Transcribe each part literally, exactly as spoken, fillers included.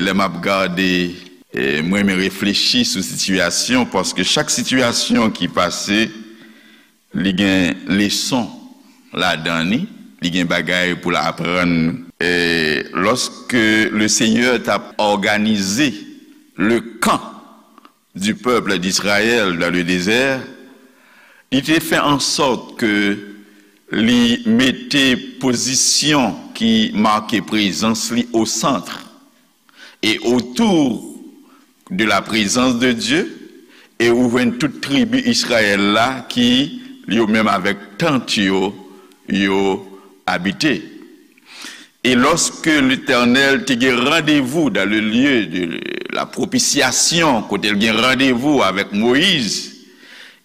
Lè m ap gade, e, mwen renmen reflechi sou sitiyasyon, paske chak sitiyasyon ki pase, li gen leson ladan li, li gen bagay pou l aprann nou. E lòske le Senyè t ap òganize le kan du peuple d'Israël dans le désert, li te fè an sòt ke li mete pozisyon ki make prezans li o sant e otou de la prezans de Dye, e ou jwenn tout tribi Izrayèl la ki, yo menm avèk tant yo, yo abite. E lòske Letènèl te gen randevou dans le lieu de la propitiation, kote l gen randevou avèk Moyiz,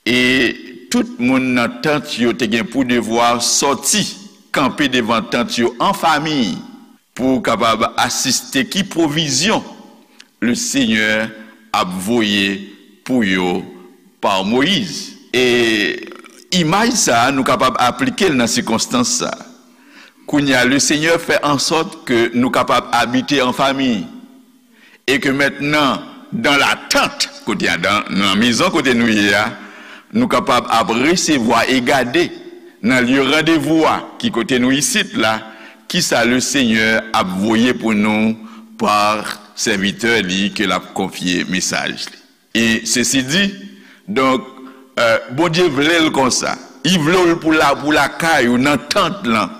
e tout moun nan tant yo te gen pou devwa sòti, kanpe devan tant yo an fanmi, pou kapab asiste ki pwovizyon le Senyè ap voye pou yo pa Moyiz. E imaj sa a, nou kapab aplike l nan sikonstans sa a. Kounye a, le Senyè fè an sòt ke nou kapab abite an fanmi. E ke mentnan, dans la tente, kote a, dans, nan mezon kote nou ye a, nou kapab ap resevwa e gade nan lye randevou a, ki kote nou isit la, kisa le Senyè ap voye pou nou pa sèvitè li ke l ap konfye mesaj li. E sesi di, donk, e, Bondye vle l konsa. Li vle w pou la, pou lakay ou, nan tant lan.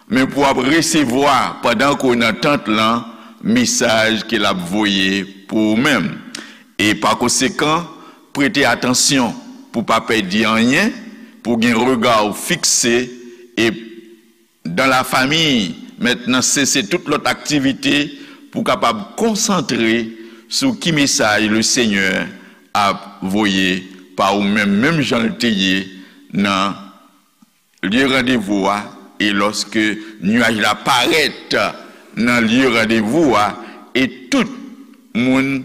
Men pou w ap resevwa, pandan ke w nan tant lan, mesaj ke l ap voye pou ou menm. E pa konsekan, prete atansyon pou w pa pèdi anyen, pou w gen rega w fikse e dans la famille, mentnan sese tout lòt aktivite pou w kapab konsantre sou ki mesaj le Senyè ap voye pa ou menm, menm jan l te ye nan lye randevou a, e lòske nyaj la parèt nan lye randevou a, e tout moun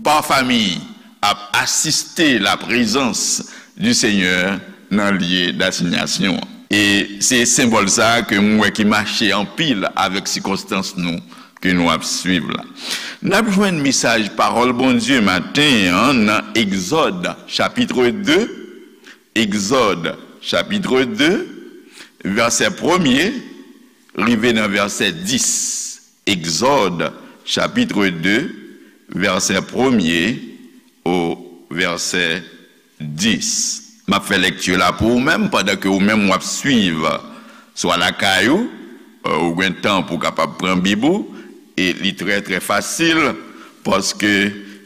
pa fanmi ap asiste la prezans du Senyè nan lye dasinyasyon an. E se senbòl sa a ke m wè ki mache anpil avèk sikonstans nou ke nou ap swiv la. N ap jwenn mesaj pawòl Bondye maten an nan Egzòd, chapitre de, Egzòd, chapitre de, vèsè premye, rive nan vèsè dis. Egzòd, chapitre de, vèsè premye o vèsè dis. M ap fè lèkti la pou ou menm, pandan ke ou menm w ap swiv, swa lakay ou, e, ou gen tan pou w kapab pran Bib ou, e li trè, trè fasil, paske,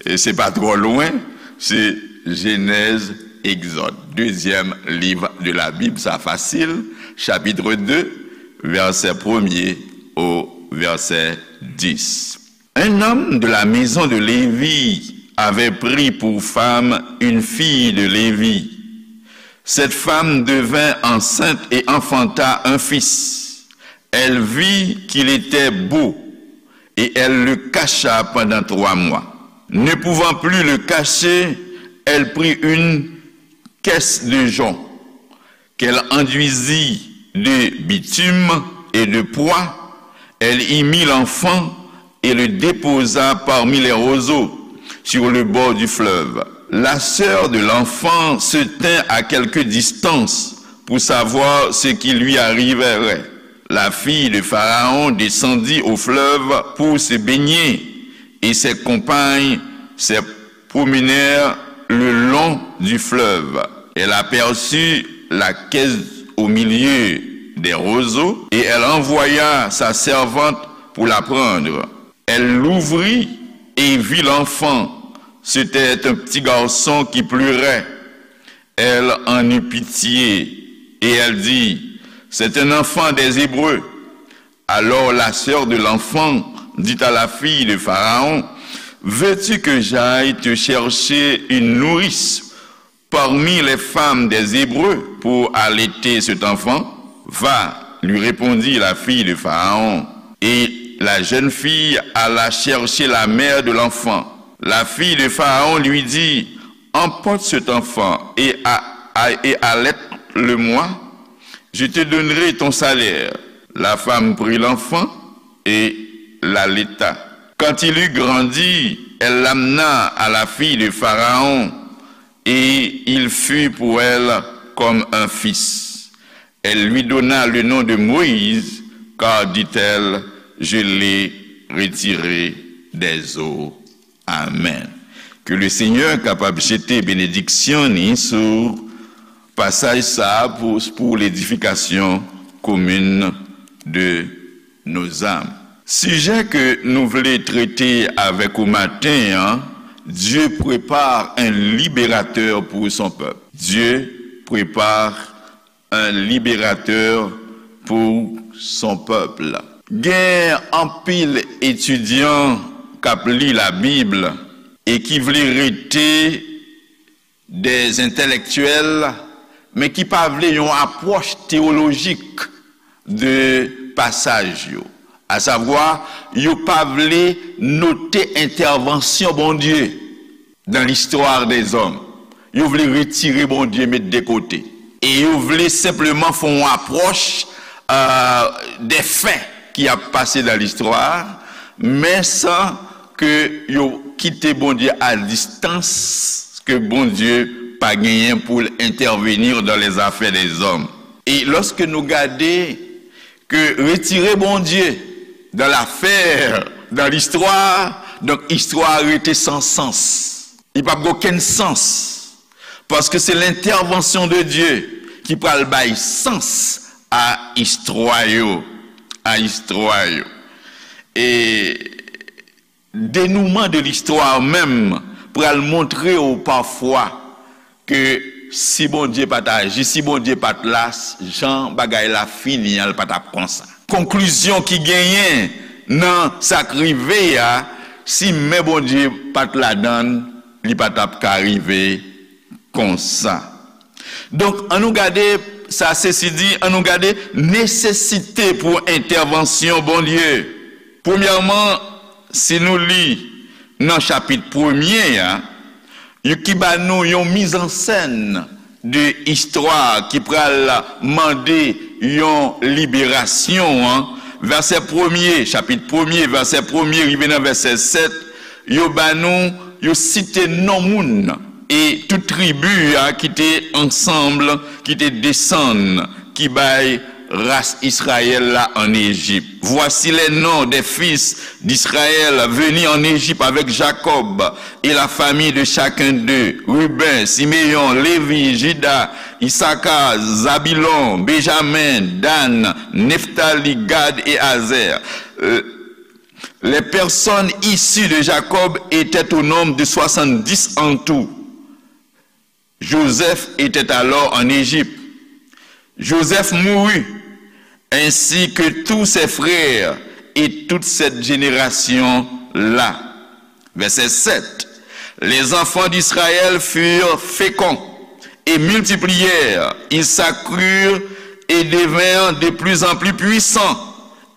e, se pa twò lwen, se Jenèz, Egzòd, dezyèm liv de la Bib, sa fasil, chapitre de, vèsè premye o vèsè dis. Un homme de la maison de Lévi avait pris pour femme une fille de Lévi. Cette femme devint enceinte et enfanta un fils. Elle vit qu'il était beau et elle le cacha pendant trois mois. Ne pouvant plus le cacher, elle prit une caisse de jonc qu'elle enduisit de bitume et de poix, elle y mit l'enfant et le déposa parmi les roseaux sur le bord du fleuve. La sœur de l'enfant se tint à quelque distance pour savoir ce qui lui arriverait. La fille de Pharaon descendit au fleuve pour se baigner, et ses compagnes se promenèrent le long du fleuve. Elle aperçut la caisse au milieu des roseaux, et elle envoya sa servante pour la prendre. Elle l'ouvrit et vit l'enfant. C'était un petit garçon qui pleurait. Elle en eut pitié, et elle dit, c'est un enfant des Hébreux. Alors la sœur de l'enfant dit à la fille de Pharaon, veux-tu que j'aille te chercher une nourrice parmi les femmes des Hébreux pour allaiter cet enfant ? Va, lui répondit la fille de Pharaon. Et la jeune fille alla chercher la mère de l'enfant. La fille de Pharaon lui dit, emporte cet enfant et, a, a, et allaite-le-moi, je te donnerai ton salaire. La femme prit l'enfant et l'allaita. Quand il eut grandi, elle l'amena à la fille de Pharaon, et il fut pour elle comme un fils. Elle lui donna le nom de Moïse, car, dit-elle, je l'ai retiré des eaux. Amen. Ke le Senyè kapab jete benediksyon ni sou pasaj sa a pou, pou ledifikasyon komin de nos âmes. Sijè ke nou vle trete avèk ou maten an, Dieu prépare un libérateur pour son peuple. Dieu prépare un libérateur pour son peuple. Gen anpil etidyan k ap li Labib e ki vle rete des intellectuels, men ki pa vle yon apwòch teyolojik de pasaj yo. Asavwa, yo pa vle note entèvansyon Bondye dans l'histoire des hommes. Yo vle retire Bondye, met de kote. E yo vle senpleman fè yon apwòch euh, des faits ki ap pase dans l'histoire, men san ke yo kite Bondye a distans, ke Bondye pa genyen pou l intervenir dans les affaires des hommes. E lòske nou gade ke retire Bondye dans l'affaire, dans l'histoire, donk istwa a rete san sans. Li p ap gen okenn sans. Paske se lentèvansyon de Dye ki pral bay sans a istwa yo, a istwa yo. E denouman de listwa menm pral montre w pafwa ke si Bondye pa t aji, si Bondye pa t la, jan bagay la fini an, l pa t ap konsa. Konklizyon ki genyen nan sa k rive a, si men Bondye pa t ladan l, li pa t ap ka rive konsa. Donk, ann nou gade, sa sesi di, ann nou gade nesesite pou entèvansyon Bondye. Premyèman, si nou li nan chapit premye a, yo ki ba nou yon mizansèn de istwa ki pral mande yon liberasyon an. Vèsè premye, chapit premye, vèsè premye rive nan vèsè sèt, yo ba nou, yo site non moun e tout tribi a ki te ansanm, ki te desann, ki bay ras Israël la en Égypte. Voici les noms des fils d'Israël venus en Égypte avec Jacob et la famille de chacun d'eux: Ruben, Siméon, Lévi, Juda, Issachar, Zabilon, Benjamin, Dan, Neftali, Gad et Azer. Euh, les personnes issues de Jacob étaient au nombre de soixante-dix en tout. Joseph était alors en Égypte. Joseph mourut, ainsi que tous ses frères et toute cette génération-là. Verset sept. Les enfants d'Israël furent féconds et multiplièrent, ils s'accrurent et devinrent de plus en plus puissants,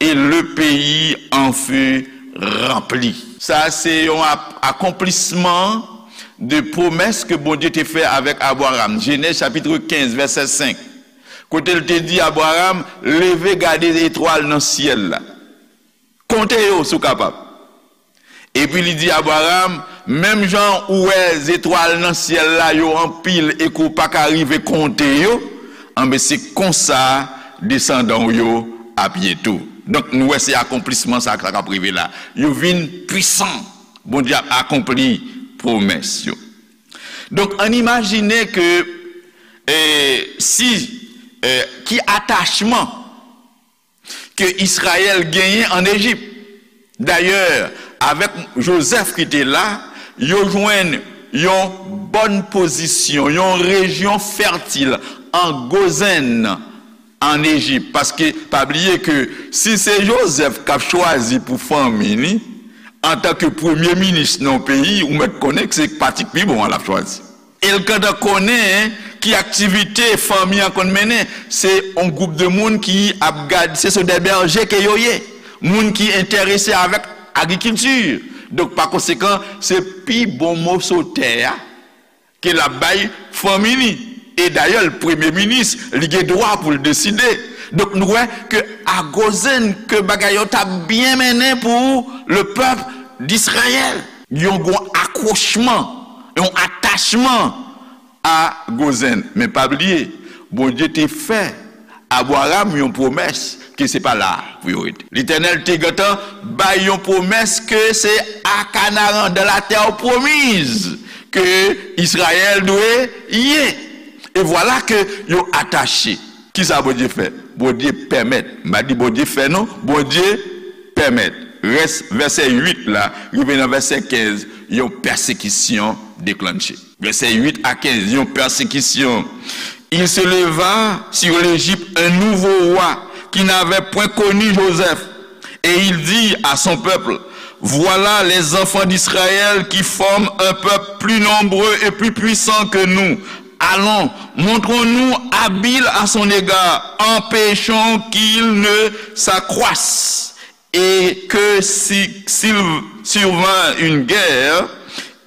et le pays en fut rempli. Sa se yon ap- akonplisman de pwomès ke Bondye te fè avèk Abraram. Jenèz chapit kenz, vèsè senk. Kote l te di Abraram, leve gade etwal nan syèl la. Konte yo si w kapab. Epi li di Abraram, menm jan ou wè zetwal nan syèl la yo anpil e ke w pa ka rive konte yo, anben se konsa desandan w yo ap ye tou. Donk nou wè se akonplisman sa k ap rive la. Yo vin pwisan. Bondye ap akonpli pwomès yo. Donk ann imajine ke eh, si eh, ki atachman ke Izrayèl genyen ann Ejip. Dayè, avèk Jozèf ki te la, yo jwenn yon bòn pozisyon, yon rejyon fètil an Gozenn, ann Ejip. Paske, pa bliye ke si se Jozèf k ap chwazi pou fanmi li, antanke premye minis nan yon peyi, ou mèt konnen ke se pa ti k pi bon an l ap chwazi. E l gentan konnen ki aktivite fanmi an konn mennen. Se yon gwoup de moun ki ap gad, se, se de bèje ke yo ye. Moun ki enterese avèk agrikilti. Donk, pa konsekan, se pi bon moso tè a ke l ap bay fanmi li. E dayè, l premye minis, li gen dwa pou l deside. Donk, nou wè ke a Gozenn, ke bagay yo t ap byen mennen pou le pèp d'Israël. Yon gwo akwochman, yon atachman a Gozen. Men pa bliye, Bondye te fè Abraram yon pwomès ke se pa la pou yo rete. Letènèl te gentan bay yon pwomès ke se a Kanaran, dans la terre promise, ke Izrayèl dwe ye. E vwala ke yo atache. Kisa Bondye fè? Bondye pèmèt. M pa di Bondye fè non, Bondye pèmèt. Rès vèsè uit la, rive nan vèsè kenz, yon pèsekisyon deklanche. Vèsè uit a kenz, yon pèsekisyon. Il se leva sur l'Égypte un nouveau roi qui n'avait point connu Joseph. Et il dit à son peuple, voilà les enfants d'Israël qui forment un peuple plus nombreux et plus puissant que nous. Allons, montrons-nous habiles à son égard, empêchons qu'il ne s'accroisse et que si, s'il survint une guerre,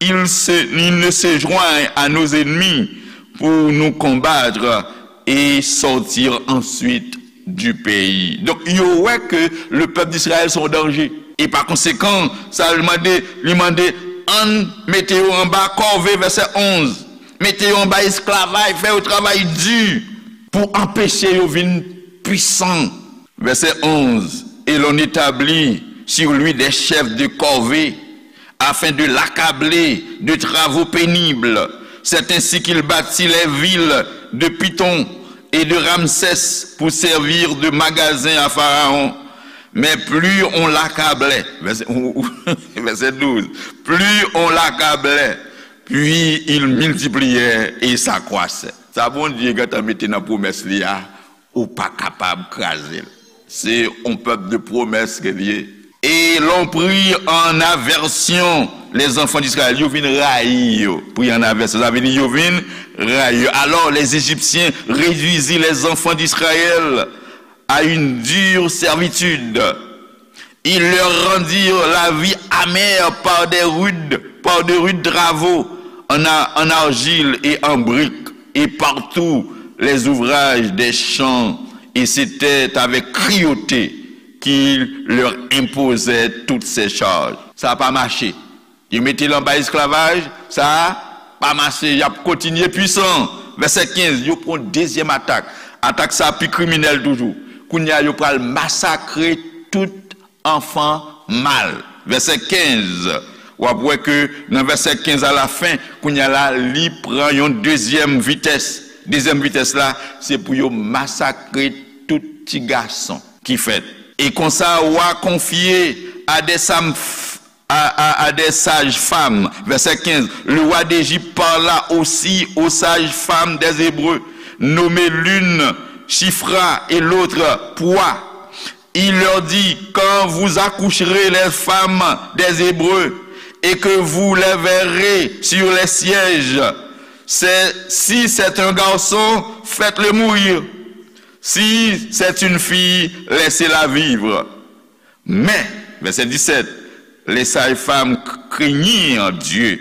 il, se, il ne se joigne à nos ennemis pour nous combattre et sortir ensuite du pays. Donk, yo wè ke le pèp d'Israël se yon danje. E pa konsekan, sa li mande, li mande, ann mete yo anba kòve, vèsè onz. Mete yo anba esklavaj, fè yo travay di pou anpeche yo vin pwisan. Verset onze, et l'on établit sur lui des chefs de corvée, afin de l'accabler de travaux pénibles. C'est ainsi qu'il bâtit les villes de Pithon et de Ramsès pour servir de magasins à Pharaon. Mais plus on l'accablait, verset, verset douze, plus on l'accablait, puis il multipliait et s'accroissait. Sa Bondye gentan mete nan pwomès li a, ou pa kapab kraze l. Se yon pèp de pwomès ke l ye. Et l'on prit en aversion les enfants d'Israël. Yo vin rayi yo. Pris en aversion, sa vle di yo vin rayi yo. Alors les Égyptiens réduisirent les enfants d'Israël à une dure servitude. Ils leur rendirent la vie amère par des rudes, par de rudes travaux en, a- en argile et en brique, et par tous les ouvrages des champs, et c'était avec cruauté qu'ils leur imposaient toutes ces charges. Sa pa mache. Yo mete l anba esklavaj, sa pa mache, y ap kontinye pwisan. Vèsè kenz, yo pran yon dezyèm atak. Atak sa pi kriminèl toujou. Kounye a, yo pral masakre tout anfan mal. Vèsè kenz, w ap wè ke nan vèsè kenz alafen, kounye a la, li pran yon dezyèm vitès. Dezyèm vitès la, se pou yo masakre tout ti gason ki fèt. Et konsa, roi confiait à des sam- à, à, à des sages-femmes. Verset quinze. Le roi d'Égypte parla aussi aux sages-femmes des Hébreux, nommées l'une Shifra et l'autre Pua. Il leur dit, quand vous accoucherez les femmes des Hébreux et que vous les verrez sur les sièges, c'est, si c'est un garçon, faites-le mourir. Si c'est une fille, laissez-la vivre. Mais, verset dix-sept, les sages-femmes craignirent Dieu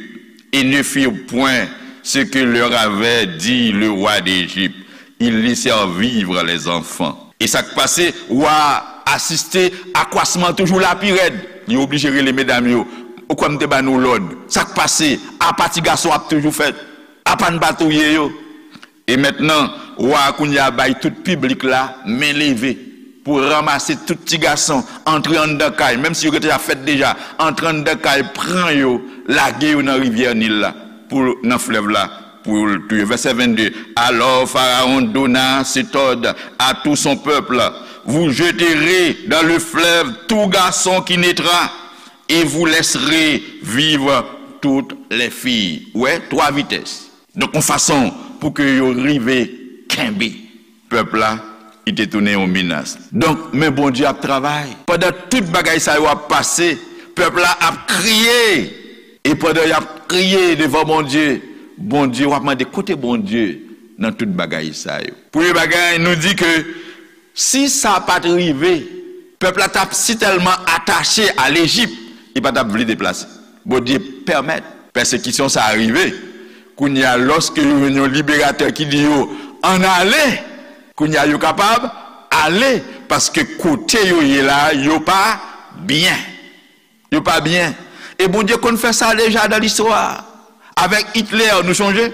et ne firent point ce que leur avait dit le roi d'Égypte. Ils laissèrent vivre les enfants. E sa k pase, wa a asiste akwasman toujou la pi rèd. Li oblije rele medam yo. Ou kwè m te ba nou lòd? Sa k pase? Apa ti gason ap toujou fèt? Apa n pa touye yo? E mentnan, wa a kounye a bay tout piblik la men leve pou ranmase tout ti gason, antre anndan kay, menm si yo gentan ap fèt deja, antre anndan kay, pran yo, lage yo nan rivyè Nil la, pou, nan flèv la, pou l touye. Verset vingt-deux. Alors Pharaon donna cet ordre à tout son peuple, vous jeterez dans le fleuve tout garçon qui naîtra, et vous laisserez vivre toutes les filles. Wè, twa vitès. Donk, yon fason pou ke yo rive kenbe pèp la, li te tounen yon menas. Donk, men Bondye ap travay. Pandan tout bagay sa yo ap pase, pèp la ap kriye. E pandan y ap kriye devan Bondye, Bondye, w ap mande, kote Bondye nan tout bagay sa yo? Premye bagay, nou di ke si sa pa t rive, pèp la t ap sitèlman atache a Lejip, li pa t ap vle deplase. Bondye pèmèt pèsekisyon sa a rive. Kounye a, lòske yo jwenn yon liberatè ki di yo, ann ale, kounye a, yo kapab ale, paske kote yo ye la, yo pa byen. Yo pa byen. E Bondye konn fè sa deja nan listwa. Avèk Hitler, nou sonje?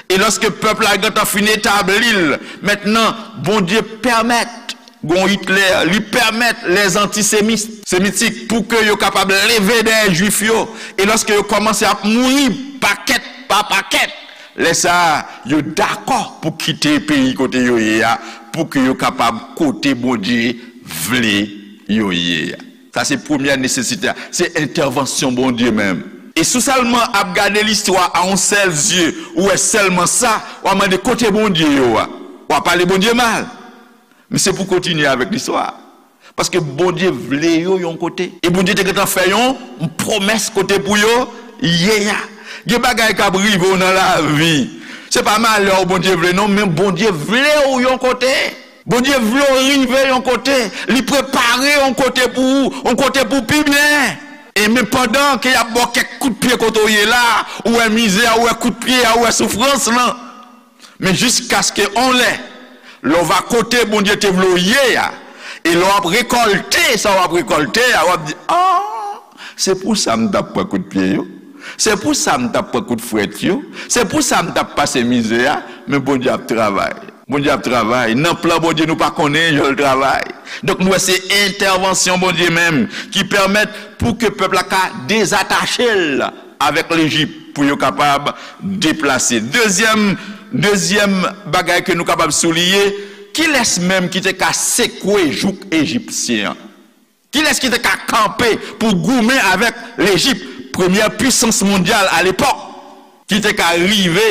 E lòske pèp la gentan fin etabli l, mentnan, Bondye pèmèt gon Hitler, li pèmèt lèzantisemitik pou ke yo kapab leve dèyè Jwif yo. E lòske yo kòmanse ap mouri pakèt pa pakèt, lè sa a, yo dakò pou kite peyi kote yo ye a, pou ke yo kapab kote Bondye vle yo ye a. Sa se premyè nesesite a, se entèvansyon Bondye menm. E si w sèlman ap gade listwa a yon sèl zye, ou wè sèlman sa, w a mande kote Bondye yo a. W a pale Bondye mal. Men se pou kontinye avèk listwa a. Paske Bondye vle yo yon kote. E Bondye te gentan fè yon pwomès kote pou yo ye a. Gen bagay k ap rive w nan lavi. Se pa malè w Bondye vle non, men Bondye vle w yon kote. Bondye vle w rive yon kote. Li prepare yon kote pou ou, yon kote pou pi byen. E men pandan ke y ap ba w kèk kout pye kote w ye la, ou wè mizè a, ou wè kout pye a, ou wè soufrans lan. Men jiskaske on lè, lè w va kote Bondye te vle w ye a, e lè w ap rekòlte sa w ap rekòlte a, w ap di, ah, se pou sa m t ap pran kout pye yo. Se pou sa m t ap pran kout frèt yo. Se pou sa m t ap pase mizè a. Men Bondye ap travay. Bondye ap travay. Nan plan Bondye, nou pa konnen jan l travay. Donk, nou wè se entèvansyon Bondye menm ki pèmèt pou ke pèp la ka dezatache l avèk Lejip pou yo kapab deplase. Dezyèm, dezyèm bagay ke nou kapab souliye, kilès menm ki te ka sekwe jouk ejipsyen an? Kilès ki te ka kanpe pou goumen avèk Lejip, premyè pisans mondyal alepòk, ki te ka rive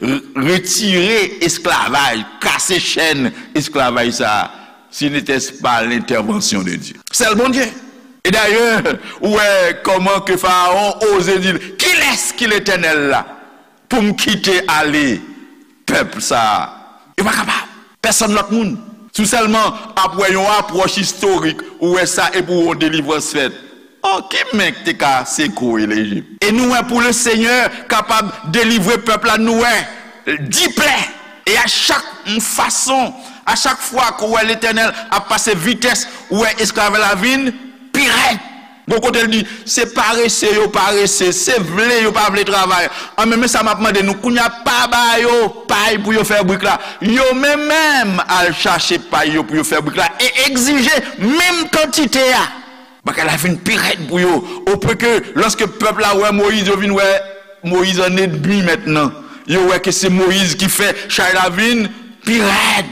r-, retire esklavaj, kase chèn esklavaj sa a, si n'était pas l'intervention de Dieu? Sèl Bondye. E dayè, ou wè kòman ke Farawon oze di l, kilès ki Letènèl la pou m kite ale pèp sa a? Yo pa kapab. Pèsonn lòt moun. Si w sèlman ap wè yon apwòch istorik, ou wè sa epi w wè yon delivrans fèt. Oh, ki men k te ka sekwe Lejip? E nou wè pou Lesenyè kapab delivre pèp la, nou wè diplè. E a chak fason, a chak fwa ke w wè Letènèl ap pase vitès, ou wè esklavaj la vin pi rèd. Gon kote l di, se parese yo parese, se vle yo pa vle travay. An, men, men sa m ap mande nou, kounye a pa ba yo pay pou yo fè brik la. Yo menm menm al chache pay yo pou yo fè brik la e egzije menm kantite a. Bagay la vin pi rèd pou yo. Opwen ke lòske pèp la wè Moyiz, yo vin wè Moyiz an enmi mentnan. Yo wè ke se Moyiz ki fè chay la vin pi rèd.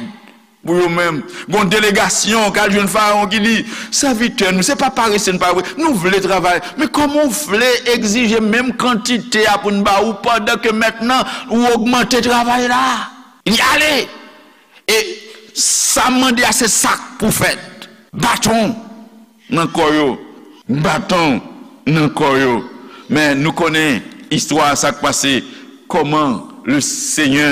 Pou yo menm. Gon delegasyon k al jwenn Farawon ki di, sèvitè nou, se pa parese n pa vre, nou vle travay. Men kòman w vle egzije menm kantite a pou n ba ou pandan ke mentnan ou ogmante travay la? Li ale. E sa m mande a se sa k pou fèt. Baton nan kò yo, baton nan kò yo. Men nou konnen istwa sa k pase, kòman le Senyè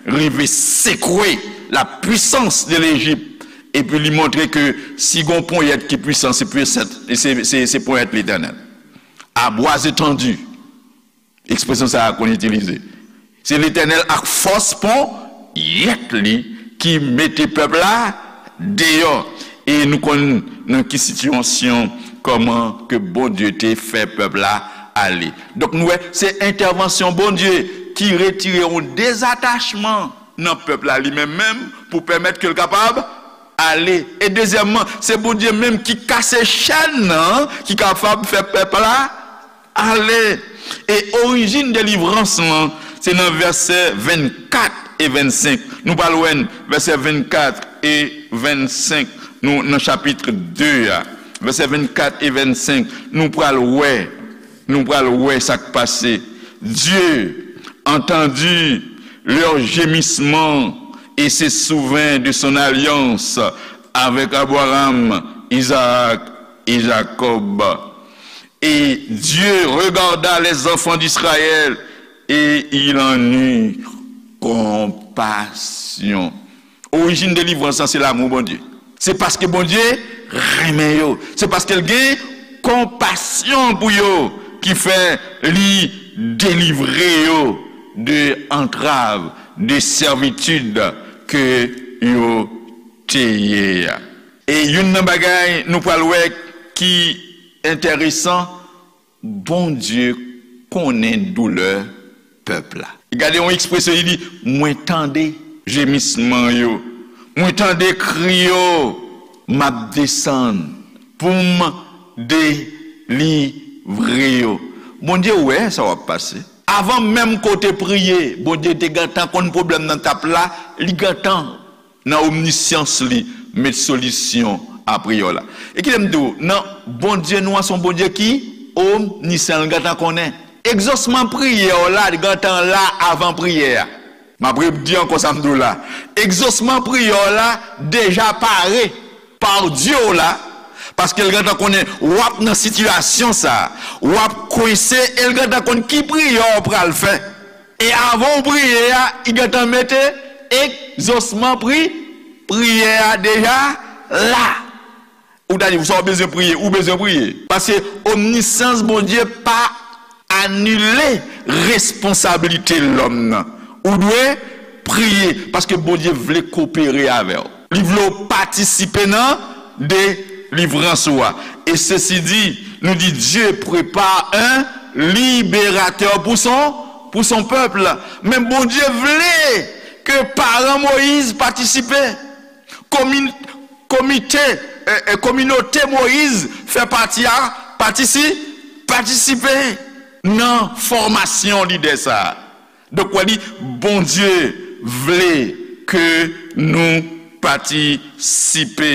rive sekwe la puissance de Lejip, epi li montre ke si gon ponyèt ki pwisan, se pwisans, se, se, se ponyèt Letènèl. À bras étendus. Ekspresyon sa a konn itilize. Se Letènèl ak fòs ponyèt li ki mete pèp la deyò. E nou konn nan ki sitiyasyon, kòman ke Bondye te fè pèp la ale. Donk, nou wè, se entèvansyon Bondye ki retire yon dezatachman nan pèp la li menm menm pou pèmèt ke l kapab ale. E dezyèmman, se Bondye menm ki kase chèn nan, ki kapab fè pèp la ale. E orijin delivrans lan, se nan vèsè vennkat e vennsenk. Nou pral wè vèsè vennkat e vennsenk. Nou nan chapit de a. Vèsè vennkat e vennsenk. Nou pral wè, nou pral wè sa k pase. Dieu entendit leur gémissement et se souvint de son alliance avec Abraham, Isaac et Jacob. Et Dieu regarda les enfants d'Israël et il en eut compassion. Orijin delivrans lan se lanmou Bondye. Se paske Bondye renmen yo. Se paske l gen konpasyon pou yo ki fè li delivre yo de antrav, de sèvitid ke yo te ye a. E youn nan bagay nou pral wè ki enteresan, Bondye konnen doulè pèp la. Gade yon ekspresyon, li di, mwen tande jemisman yo, mwen tande kri yo, m ap desann pou m delivre yo. Bondye wè sa w ap pase. Avan menm ke w te priye, Bondye te gentan konn pwoblèm nan t ap la, li gentan nan omnisyans li, met solisyon a priyè w la. E kite m di w, nan Bondye nou an, se yon Bondye ki omnisyan, li gentan konnen. Egzosman priyè w la, li gentan la avan priyè a. M ap redi ankò sa m di w la. Egzosman priyè w la deja pare pa Dye w la, paske l gentan konnen w ap nan sitiyasyon sa a, w ap kwense, e l gentan konn ki priyè w pral fè. E avan w priye a, li gentan mete egzosman pri, priyè a deja la. Ou ta di, sa w bezwen priye, ou bezwen priye. Paske omnisans Bondye pa anile responsablite lòm nan. Ou dwe priye, paske Bondye vle kopere avè w. Li vle w patisipe nan delivrans ou a. Et ceci dit, nou di, Dieu prépare un libérateur pour son, pour son peuple. Men Bondye vle ke paran Moyiz patisipe. Komi-, komite, eh, eh, kominote Moyiz fè pati a, patisi-, patisipe nan fòmasyon lidè sa a. Donk, w a di, Bondye vle ke nou patisipe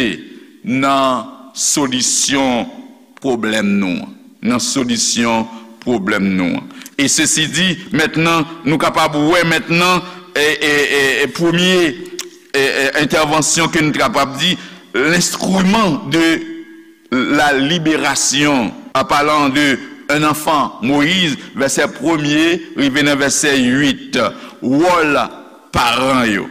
nan solisyon pwoblèm nou an. Nan solisyon pwoblèm nou an. E sesi di, mentnan, nou kapab wè mentnan, e, e, e, e premye, e, e, entèvansyon ke nou kapab di, l'instrument de la libération, en parlant de un enfant, Moyiz, vèsè premye rive nan vèsè uit, wòl paran yo.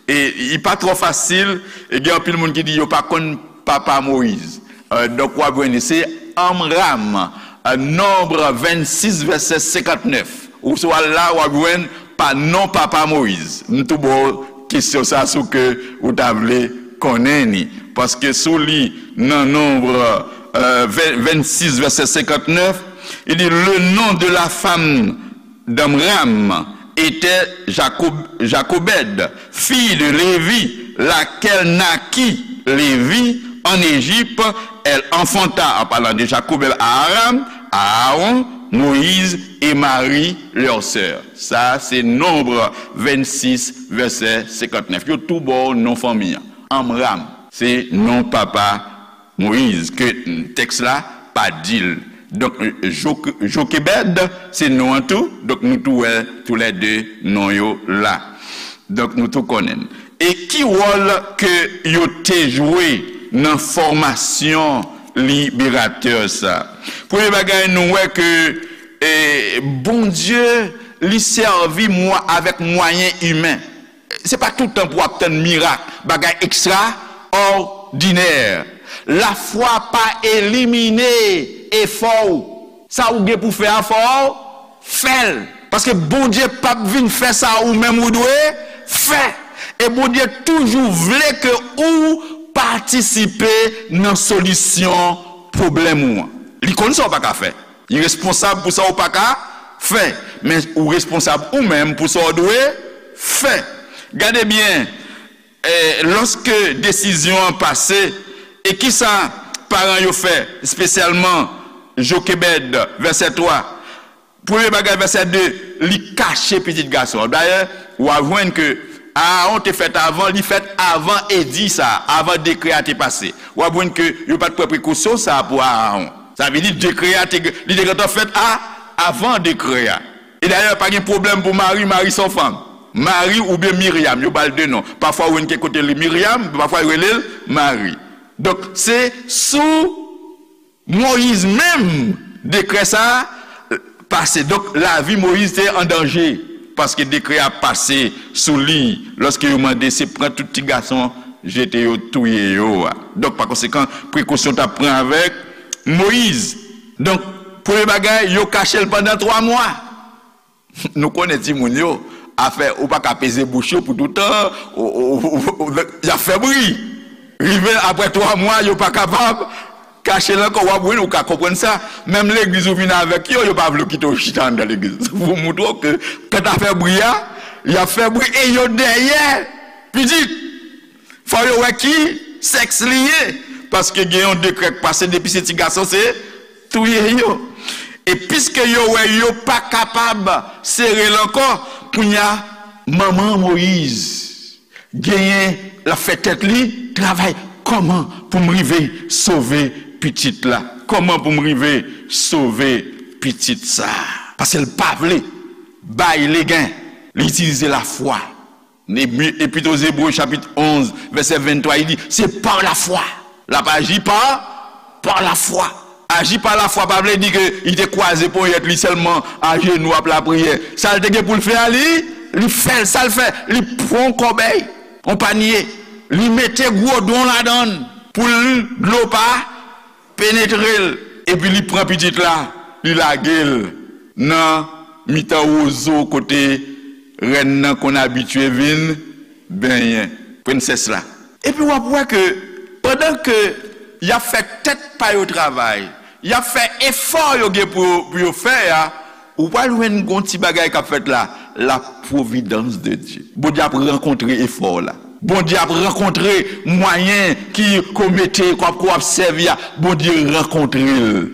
E li pa twò fasil, e gen anpil moun ki di yo pa konn papa Moyiz. Euh, donk, w ap jwenn li, se Anmram, euh, Nonb vennsis, vèsè senkantnèf. Ou sou al la, w ap jwenn pa non papa Moyiz. M tou ba w kesyon sa sou ke ou ta vle konnen ni. Paske sou li, nan Nonb, euh, ven-, vennsis, vèsè senkantnèf, li di, le nom de la femme d'Amram était Jacob-, Jacobède, fille de Lévi, laquelle naquit Lévi en Égypte. Elle enfanta, en parlant de Jacobède, à Aram, à Aaron, Moïse et Marie, leur sœur. Sa, se Nonb vennsis, vèsè senkantnèf. Yo tou ba w non fanmi an. Anmram, se non papa Moyiz, ke tèks la pa di l. Donk, Jok-, Jokebèd, se non an tou. Donk, nou tou wè toulède non yo la. Donk, nou tou konnen l. E ki wòl ke yo te jwe nan fòmasyon liberatè sa? Premye bagay, nou wè ke, e, Bondye, li sèvi mwa-, avèk mwayen imen. Se pa tout tan pou w ap tann mirak, bagay ekstraòdinè. Lafwa pa elimine efò w. Sa ou gen pou fè a, fò w fè l. Paske Bondye p ap vin fè sa ou menm ou dwe fè. E Bondye toujou vle ke ou patisipe nan solisyon pwoblèm ou an. Li konn sa w pa ka fè. Li responsab pou sa w pa ka fè. Men ou responsab ou menm pou sa w dwe fè. Gade byen, e, lòske desizyon an pase, e kisa paran yo fè, espesyalman Jokebèd, vèsè twa, premye bagay, vèsè de, li kache pitit gason an. Dayè, w a jwenn ke Aawon te fèt avan, li fèt avan edi sa, avan dekrè a te pase. W a jwenn ke yo pa t pran prekosyon sa pou Aawon. Sa vle di dekrè a te, li te gentan fèt a, avan dekrè a. E dayè, pa gen pwoblèm pou Mari, Mari se yon fanm. Mari oubyen Miryam, yo ba l de non. Pafwa ou jwenn kèk kote li Miryam, pafwa yo rele l Mari. Donk, se sou Moyiz menm dekrè sa a pase. Donk, lavi Moyiz te an danje, paske dekrè a pase sou li, lòske yo mande se pran tout ti gason, jete yo, touye yo a. Donk, pa konsekan, prekosyon t ap pran avèk Moyiz. Donk, premye bagay, yo kache l pandan twa mwa. Nou konnen timoun yo, afè, ou pa ka peze bouch yo pou toutan, ou, ou, ou, ou, y ap fè bri. Rive apre twa mwa, yo pa kapab Kache l ankò, w ap wi, ou ka konprann sa. Menm legliz ou vin avèk yo, yo pa vle w kite w chita anndan legliz. Pou montre w ke, kanta fè bri a, y ap fè bri e yo dèyè pitit. Fò yo wè ki sèks li ye. Paske gen yon dekrè k pase, depi se ti gason, se touye yo. E piske yo wè yo pa kapab sere l ankò, kounye a, manman Moyiz genyen, l ap fè tèt li travay. Kòman pou m rive sove pitit la? Kòman pou m rive sove pitit sa? Paske l pa vle bay legen. Li itilize lafwa. Epi, Epit o Zebre, chapit onz, vèsè venntwa, li di, se pa lafwa. L ap aji pa, pa lafwa. Aji pa lafwa pa vle di ke li te kwaze ponyèt li sèlman, ajenou ap lapriyè. Sa l te gen pou l fè a, li, li fè l. Sa l fè, li pran yon kòbèy, yon panye, li mete gwo don ladan l pou l, dlo pa penetre l. Epi li pran pitit la, li lage l nan mitan wozo kote rèn nan konn abitye vin benyen, prensès la. Epi w ap wè ke pandan ke y ap fè tèt pa yo travay, y ap fè efò yo gen pou, pou yo fè a, ou pral jwenn gon ti bagay k ap fèt la, la providence de Dieu. Bondye ap rankontre efò w la. Bondye ap rankontre mwayen ki, ke w mete, ke w ap, ke w ap sèvi a. Bondye rankontre l.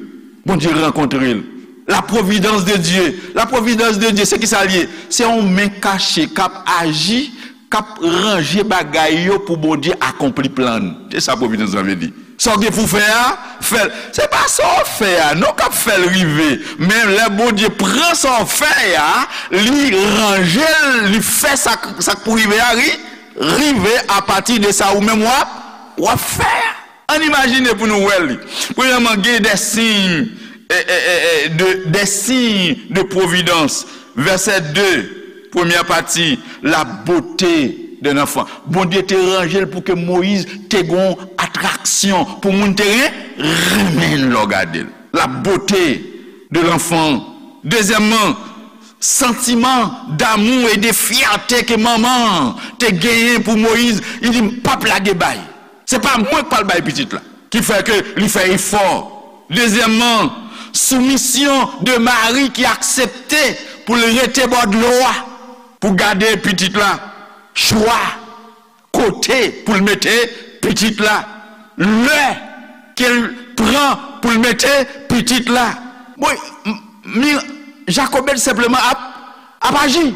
Bondye rankontre l. La providence de Dieu. La providence de Dieu, se ki sa l ye? Se yon men kache k ap aji, k ap ranje bagay yo pou Bondye akonpli plan l. Se sa providence la vle di. Sa w gen pou w fè a, fè l. Se pa sa w fè a, non, k ap fè l rive. Men lè Bondye pran sa w fè a, li ranje l, li fè sa, sa k pou rive a, ri, rive apati de sa ou menm w ap, w ap fè a. Ann imajine pou nou wè li. Premyèman, gen des signes, eh, eh, eh, eh, de, des signes de providence. Vèsè de, premyè pati, la beauté de l'enfant. Bondye te ranje l pou ke Moyiz te gon atraksyon, pou moun te ren-, renmen l lè w gade l. La beauté de l'enfant. Dezyèmman, santiman damou e de fyète ke manman an te genyen pou Moyiz, li di, "M p ap lage bay. Se pa mwen k pral bay pitit la." Ki fè ke li fè efò. Dezyèmman, soumisyon de Mari ki aksepte pou l rete bò dlo a, pou gade pitit la. Chwa kote pou l mete pitit la, lè ke l pran pou l mete pitit la. Bon, m-, mi-, Jakobèd senpleman ap, ap aji.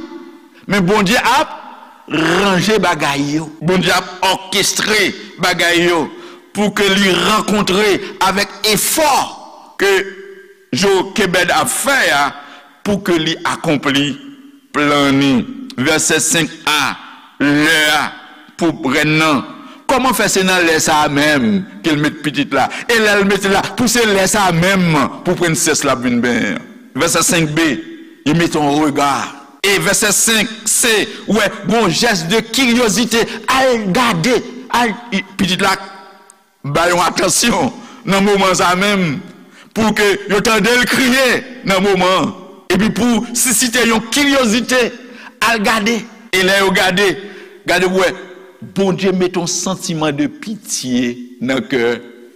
Men Bondye ap ranje bagay yo. Bondye ap òkestre bagay yo pou ke li rankontre avèk efò ke Jokebèd ap fè a pou ke li akonpli plan ni. Vèsè senk a, lè a pou rèn nan. Kòman fè se nan lè sa a menm ke l met pitit la? E lè l mete l la, pou se lè sa a menm pou prensès la ap vin benyen an. Vèsè senk B, li mete yon rega. E vèsè senk C, wè, gon jès de kiryozite, al gade, al, i-, pitit la ba yon atansyon nan moman sa menm, pou ke yo tande l kriye nan moman an, epi pou sisite yon kiryozite, al gade. E lè yo gade, gade pou wè, Bondye mete yon santiman de pitye nan kè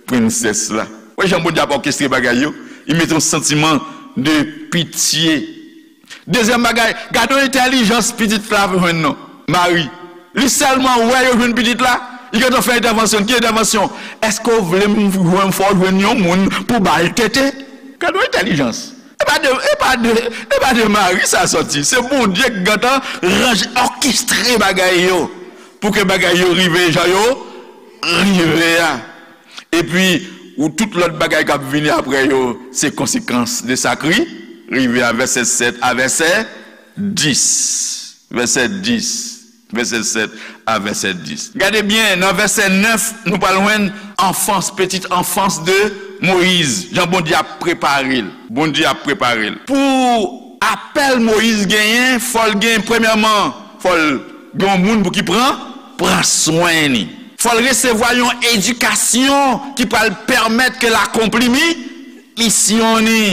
prensès la. Wè jan Bondye ap òkestre bagay yo, li mete yon santiman de pitye. Dezyèm bagay, gade yon entèlijans pitit la jwenn non, Mari. Li sèlman wè yo jwenn pitit la, li gentan fè entèvansyon. Ki entèvansyon? Èske w vle m jwenn, fò w jwenn yon moun pou ba l tete? Gade yon entèlijans. E pa de, e pa de, e pa de Mari sa sòti. Se Bondye ki gentan ranje, òkestre bagay yo pou ke bagay yo rive jan yo rive a. Epi, ou tout lòt bagay k ap vini apre yo, se konsekans de sa k ri-, rive a, vèsè sèt a vèsè dis. Vèsè dis. Vèsè sèt a vèsè dis. Gade byen, nan vèsè nèf, nou pral jwenn anfans, petite enfance de Moïse. Jan Bondye ap prepare l. Bondye ap prepare l. Pou apèl Moïse genyen, fò l gen, premyèman, fò l gen yon moun pou ki pran, pran swen li. Fò l resevwa yon edikasyon ki pral pèmèt ke l akonpli mi-, misyon ni.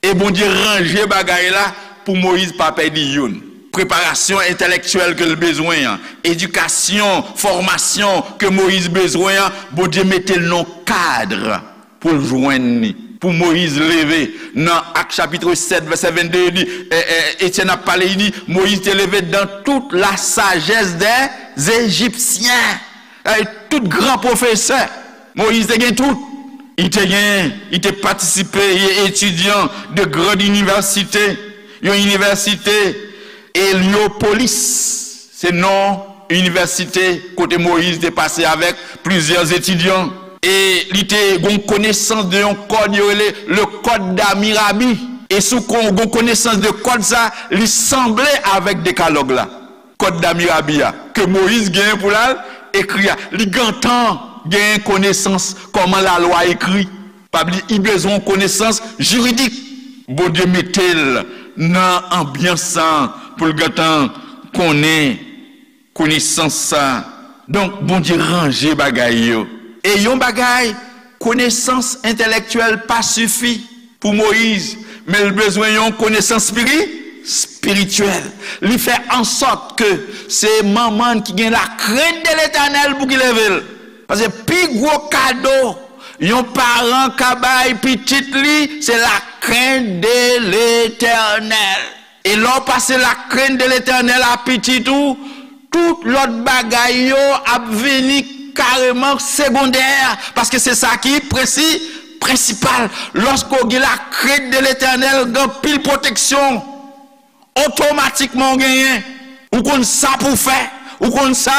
E Bondye ranje bagay la pou Moyiz pa pèdi youn. Preparasyon entèlektyèl ke l bezwen an, edikasyon, fòmasyon ke Moyiz bezwen an, Bondye mete l nan kad pou l jwenn li. Pou Moyiz leve, nan Ak chapit sèt, vèsè vennde, li di, e, e, Etyèn ap pale, li di, Moyiz te leve dans toute la sagesse des Égyptiens. E, tout gran pwofesè, Moyiz te gen tout. Li te gen, li te patisipe, li etidyan de grande université, yon inivèsite Heliopolis, se non inivèsite kote Moyiz te pase avèk plizyè etidyan. E li te gon konesans de yon kòd yo rele le Code d'Hammurabi. E sou kon gon konesans de kòd sa, li sanble avèk Dekalòg la. Kòd d'Hammurabi a, ke Moyiz genyen pou l al ekri a. Li gentan genyen konesans kòman lalwa ekri. Pa bliye, li bezwen yon konesans jiridik. Bondye mete l nan anbyans sa pou l gentan konnen konesans sa. Donk, Bondye ranje bagay yo. E yon bagay, konesans entèlektyèl pa sifi pou Moyiz, men l bezwen yon konesans spiri-, espirityèl. Li fè ansòt ke se manman ki gen la krent de Letènèl pou ki leve l. Paske pi gwo kado yon paran ka bay pitit li, se la krent de Letènèl. E lè w pase la krent de Letènèl a pitit ou, tout lòt bagay yo ap vini kareman segondè, paske se sa ki prensi-, prensipal. Lòske w gen la krent de Letènèl, gen anpil pwoteksyon. Otomatikman w genyen. Ou konn sa pou w fè, ou konn sa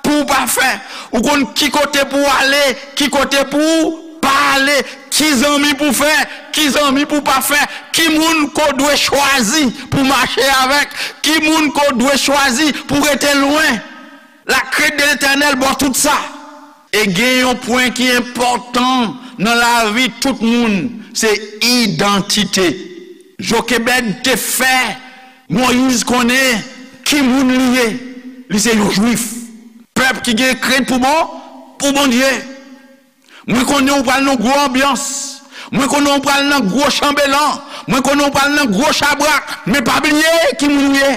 pou w pa fè. Ou konn ki kote pou w ale, ki kote pou w pa ale, ki zanmi pou w fè, ki zanmi pou w pa fè, ki moun ke w dwe chwazi pou w mache avèk, ki moun ke w dwe chwazi pou w rete lwen. La krent de Letènèl ba w tout sa. E gen yon pwen ki enpòtan nan lavi tout moun, se idantite. Jokebèd te fè Moyiz konnen ki moun li ye. Li se yon Jwif. Pèp ki gen krent pou bon, pou Bondye. Mwen konnen w pral nan gwo anbyans. Mwen konnen w pral nan gwo chanbelan. Mwen konnen w pral nan gwo chabrak. Men pa bliye ki moun ou ye.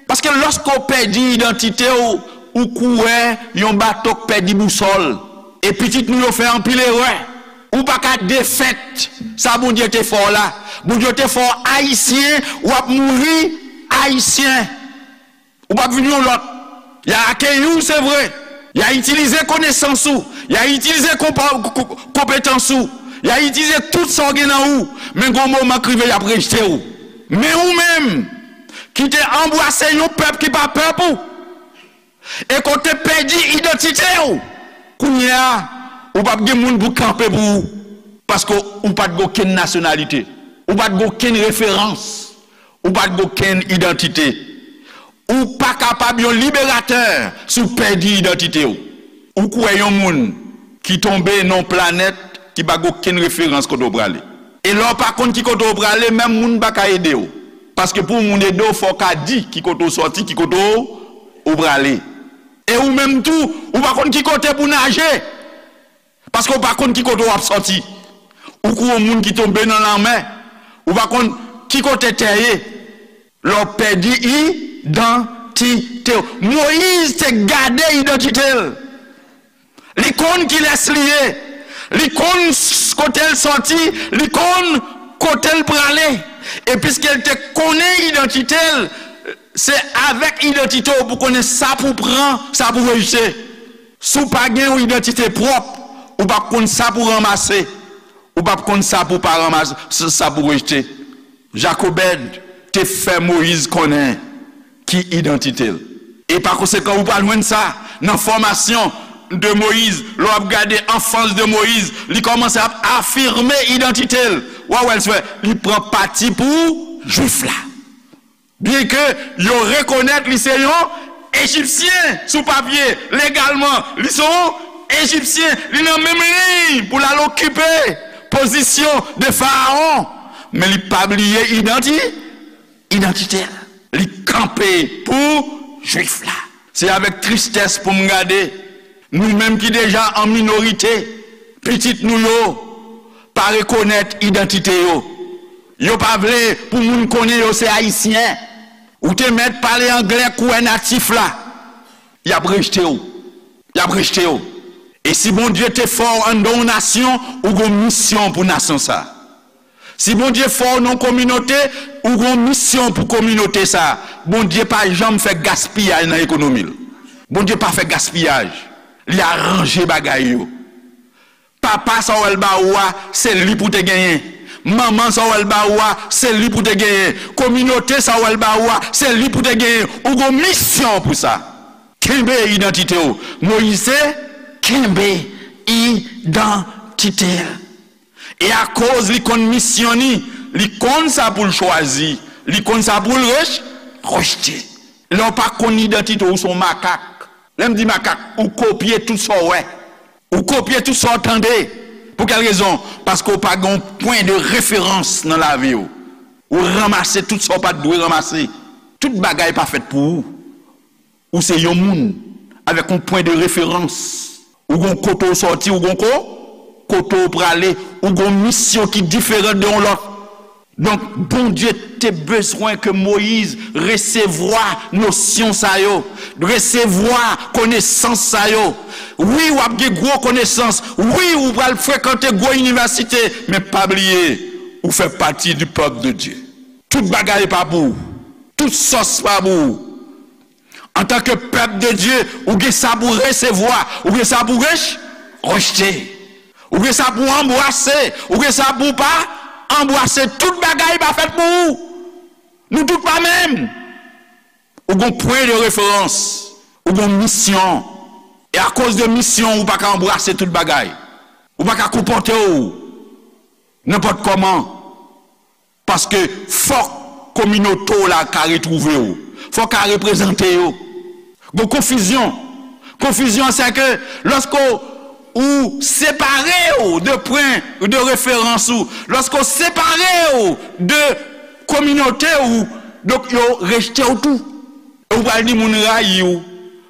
Paske lòske w pèdi idantite w, ou kou wè yon bato k pèdi bousòl. E pitit nou yo fè anpil erè. Ou pa ka defèt sa Bondye te fè w la. Bondye te fè w ayisyen, w ap mouri ayisyen. Ou p ap vin yon lòt. Y a akeyi w, se vre. Y a itilize konesans ou. Y a itilize konpa-, ko-, ko-, konpetans ou. Y a itilize tout sa w gen nan ou. Men gon moman k rive, y ap rejte w. Men ou menm, ki te anbrase yon pèp ki pa pèp ou, e ke w te pèdi idantite w, kounye a, ou p ap gen moun pou kanpe pou ou. Paske ou pa t gen okenn nasyonalite. Ou pa t gen okenn referans. Ou pa t gen okenn idantite. Ou pa kapab yon liberatè si w pèdi idantite w. Ou kwè yon moun ki tonbe nan yon planèt ki pa gen okenn referans kote w prale. E lè w pa konn ki kote w prale, menm moun pa ka ede w. Paske pou yon moun ede w, fò w ka di ki kote w sòti, ki kote w, w prale. E ou menm tou, ou pa konn ki kote pou naje. Paske w pa konn ki kote w ap sòti. Ou kou yon moun ki tonbe nan lanmè. Ou pa konn ki kote tè ye. Lè w pèdi idantite w. Moyiz te gade idantite l. Li konn kilès li ye. Li konn s-, kote l sòti. Li konn kote l prale. E piske l te konnen idantite l, se avèk idantite w pou konnen sa pou pran, sa pou rejte. Si w pa gen yon idantite pwòp, ou p ap konn sa pou ranmase, ou p ap konn sa pou pa ranmase, sa pou rejte. Jakobèd te fè Moyiz konnen ki idantite l. E pa konsekan, ou pral jwenn sa nan fòmasyon de Moyiz. Lè w ap gade anfans de Moyiz, li kòmanse ap afime idantite l. W a wè l fè, li pran pati pou Jwif la. Byenke yo rekonèt li se yon Ejipsyen sou papye, legalman, li se yon Ejipsyen, li nan menm liy pou l al okipe pozisyon de Farawon, men li pa bliye idanti-, idantite l. Li kanpe pou Jwif la. Se avèk tristès pou m gade, nou menm ki deja an minorite, pitit nou yo pa rekonèt idantite yo. Yo pa vle pou moun konnen yo se Ayisyen. Ou te mèt pale anglè kou wè natif la. Y ap rejte w. Y ap rejte w. E si Bondye te fè w anndan yon nasyon, ou gon misyon pou nasyon sa. Si Bondye fè w nan yon kominote, ou gon misyon pou kominote sa. Bondye pa janm fè gaspiyaj nan ekonomi l. Bondye pa fè gaspiyaj. Li aranje bagay yo. Papa sa w wè l ba ou a, se li pou te genyen. Manman sa w wè l ba ou a, se li pou te genyen. Kominote sa w wè l ba ou a, se li pou te genyen. Ou gon misyon pou sa. Kenbe idantite w. Moyiz te kenbe idantite l. E akoz li konn misyon ni, li konn sa pou l chwazi, li konn sa pou l rech-, rejte. Lè w pa konn idantite w, ou se yon makak. Lè m di makak, ou kopye tout sa w wè. Ou kopye tout sa w tande. Pou kèl rezon? Paske w pa gen yon pwen de referans nan lavi w. Ou ranmase tout sa w pa t dwe ranmase. Tout bagay pa fèt pou ou. Ou se yon moun avèk yon pwen de referans. Ou gon kote w sòti, ou gon ko-, kote w prale, ou gon misyon ki diferan de yon lòt. Donk, Bondye te bezwen ke Moyiz resevwa nosyon sa yo, resevwa konesans sa yo. Wi, w ap gen gwo konesans. Wi, ou pral frekante gwo inivèsite. Men pa bliye, ou fè pati di pèp de Dye. Tout bagay pa pou ou. Tout sòs pa pou ou. Antanke pèp de Dye, ou gen sa pou resevwa, ou gen sa pou rech-, rejte. Ou gen sa pou anbrase, ou gen sa pou pa anbrase. Tout bagay pa fèt pou ou. Nou tout pa menm. Ou gon pwen de referans, ou gon misyon. E akoz de misyon, ou pa ka anbrase tout bagay. Ou pa ka konpòte w nenpòt kòman. Paske fòk kominote w la ka retwouve w. Fòk ka reprezante yo. Gon konfizyon. Konfizyon, se ke lòske w separe w de pwen de referans ou, lòske w separe w de kominote ou, donk yo rejte w tou. E ou pral di moun rayi w.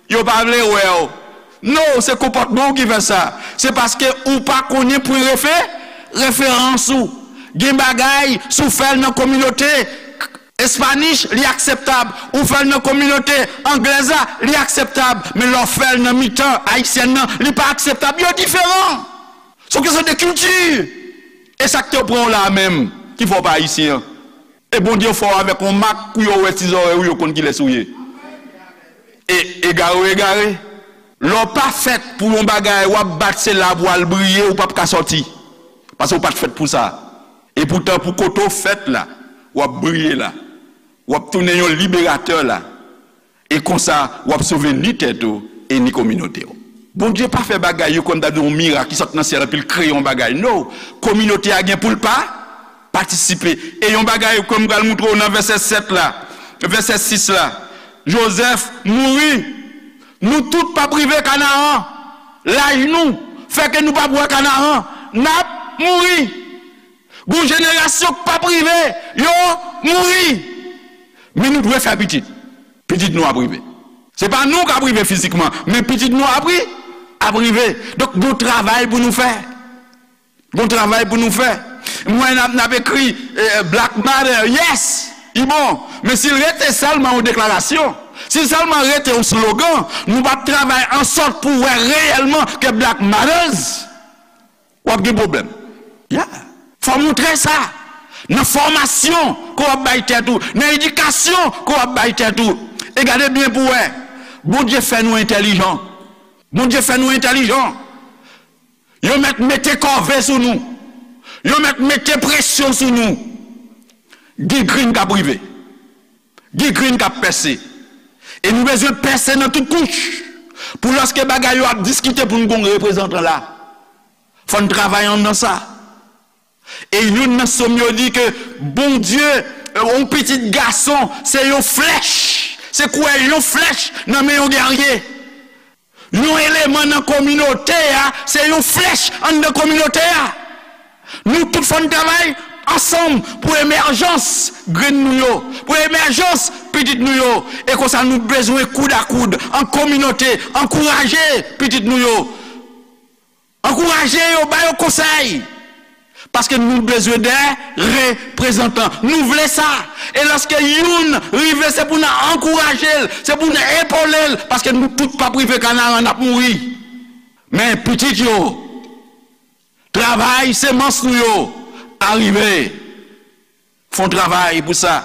Yo pa vle wè w. Non, se konpòtman w ki fè sa. Se paske ou pa konnen pwen refe-, referans ou. Gen bagay, si w fè l nan kominote Espanish, li akseptab. Ou fè l nan kominote anglèz la, li akseptab. Men lè w fè l nan mitan ayisyèn nan, li pa akseptab. Yo diferan. Se yon kesyon de kilti. E sa k te pran w la a menm, ki fè w pa ayisyen an? E Bondye fè w avèk yon mak pou yo wè ti zòrèy ou, yo konn kilès ou ye. E egare w egare. Lè w pa fèt pou yon bagay, w ap bat se la pou w al briye, ou p ap ka sòti. Paske w pa t fèt pou sa. E poutan, pou kote w fèt la, w ap briye la. W ap tounen yon liberatè la. E konsa, w ap sove ni tèt ou e ni kominote w. Bondye pa fè bagay yo kòm ta di yon mirak ki sot nan syèl epi l kreye yon bagay. No! Kominote a gen pou l pa patisipe. E yon bagay ke m pral moutre w nan vèsè sèt la, vèsè sis la, Jozèf mouri. Nou tout p ap rive Kanaran. Laj nou fè ke nou p ap wè Kanaran. N ap mouri. Gon jenerasyon k p ap rive, yo mouri. Men nou dwe fè pitit. Pitit nou ap rive. Se pa nou k ap rive fizikman, men pitit nou ap ri-, ap rive. Donk, gon travay pou nou fè. Gon travay pou nou fè. M wè n ap, n ap ekri, eh, Black Matter, yes, li bon. Men si l rete sèlman yon deklarasyon, si l sèlman rete yon slogan, nou p ap travay ansòt pou wè reyèlman ke Black Matters. W ap gen pwoblèm. Yeah. Fò w montre sa. Nan fòmasyon ke w ap bay tèt ou, nan edikasyon ke w ap bay tèt ou. E gade byen pou w wè. Bondye fè nou entèlijan. Bondye fè nou entèlijan. Yo mèt mete kòve sou nou. Yo mèt mete presyon sou nou. Gen grenn k ap rive. Gen grenn k ap pèse. E nou bezwen pèse nan tout kouch. Pou lòske bagay yo ap diskite pou nou gon reprezantan la. Fò n travay anndan sa. E youn nan sòm yo di ke Bondye, eh, yon pitit gason, se yon flèch. Se kwè yon flèch nan men yon gèrye. Yon eleman nan kominote a, se yon flèch anndan kominote a. Nou tout fò n travay ansanm pou emèjans grenn nou yo, pou emèjans pitit nou yo. E konsa nou bezwen koud a koud, an kominote, ankouraje pitit nou yo. Ankouraje yo, ba yo konsèy. Paske nou bezwen de reprezantan. Nou vle sa. E lòske youn rive, se pou n ankouraje l, se pou n epole l, paske nou tout p ap rive Kanaran, n ap mouri. Men pitit yo, travay semans nou yo, arive. Fè yon travay pou sa.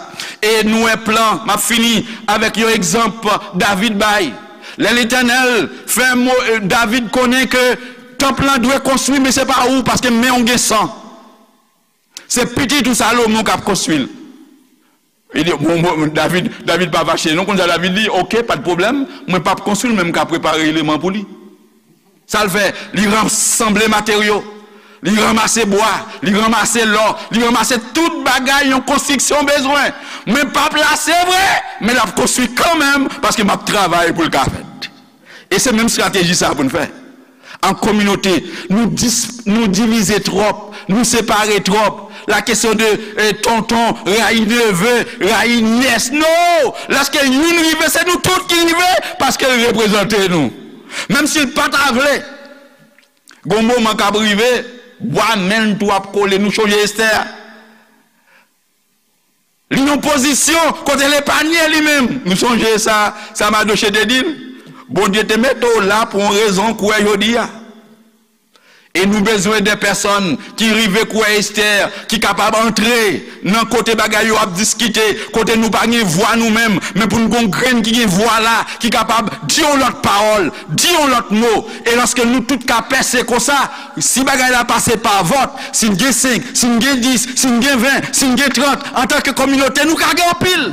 E nou wè plan, m ap fini avèk yon egzanp David bay. Lè Letènèl fè mo, David konnen ke tanp lan dwe konstwi, men se pa ou, paske men w gen san. Se pitit ou Salomon k ap konstwi l. Li di, bon, bon, David, David pa fache. Non, konn sa David di, oke, pa de pwoblèm, mwen p ap konstwi l, men m ka prepare eleman pou li. Sa l fè, li ransanble materyo, li ranmase bwa, li ranmase lò, li ranmase tout bagay yon konstriksyon bezwen. Men p ap la, se vre, men l ap konstwi kanmenm, paske m ap travay pou l ka fèt. E se menm estrateji sa pou n fè. An kominote, nou dis-, nou divize twòp, nou separe twòp. La kesyon de, eh, tonton, rayi neve, rayi nyès. Non! Lèske youn rive, se nou tout ki rive, paske l reprezante nou. Menm si l pa ta vle, gon moman k ap rive, bwa men l tou ap kole. Nou chonje Estè a. Li nan pozisyon kote l epanye li menm. Nou sonje sa, sa Madoche te di l? Bondye te mete w la pou yon rezon, kwè jodi a. E nou bezwen de pèsòn ki rive kwè Estè, ki kapab antre nan kote bagay yo ap diskite, kote nou pa gen vwa nou menm, men pou n gon grenn ki gen vwa la, ki kapab di yon lòt pawòl, di yon lòt mo. E lòske nou tout ka pèse konsa, si bagay la pase pa vòt, si n gen senk, si n gen dis, si n gen ven, si n gen trant, antanke kominote, nou ka gen anpil.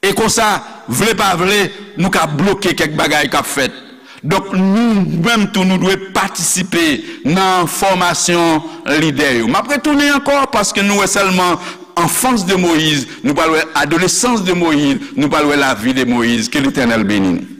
E konsa, vle pa vle, nou ka bloke kèk bagay k ap fèt. Donk, nou menm tou, nou dwe patisipe nan fòmasyon lidè yo. M ap retounen ankò, paske nou wè sèlman anfans de Moyiz, nou pral wè adolesans de Moyiz, nou pral wè lavi de Moyiz. Ke Letènèl beni nou.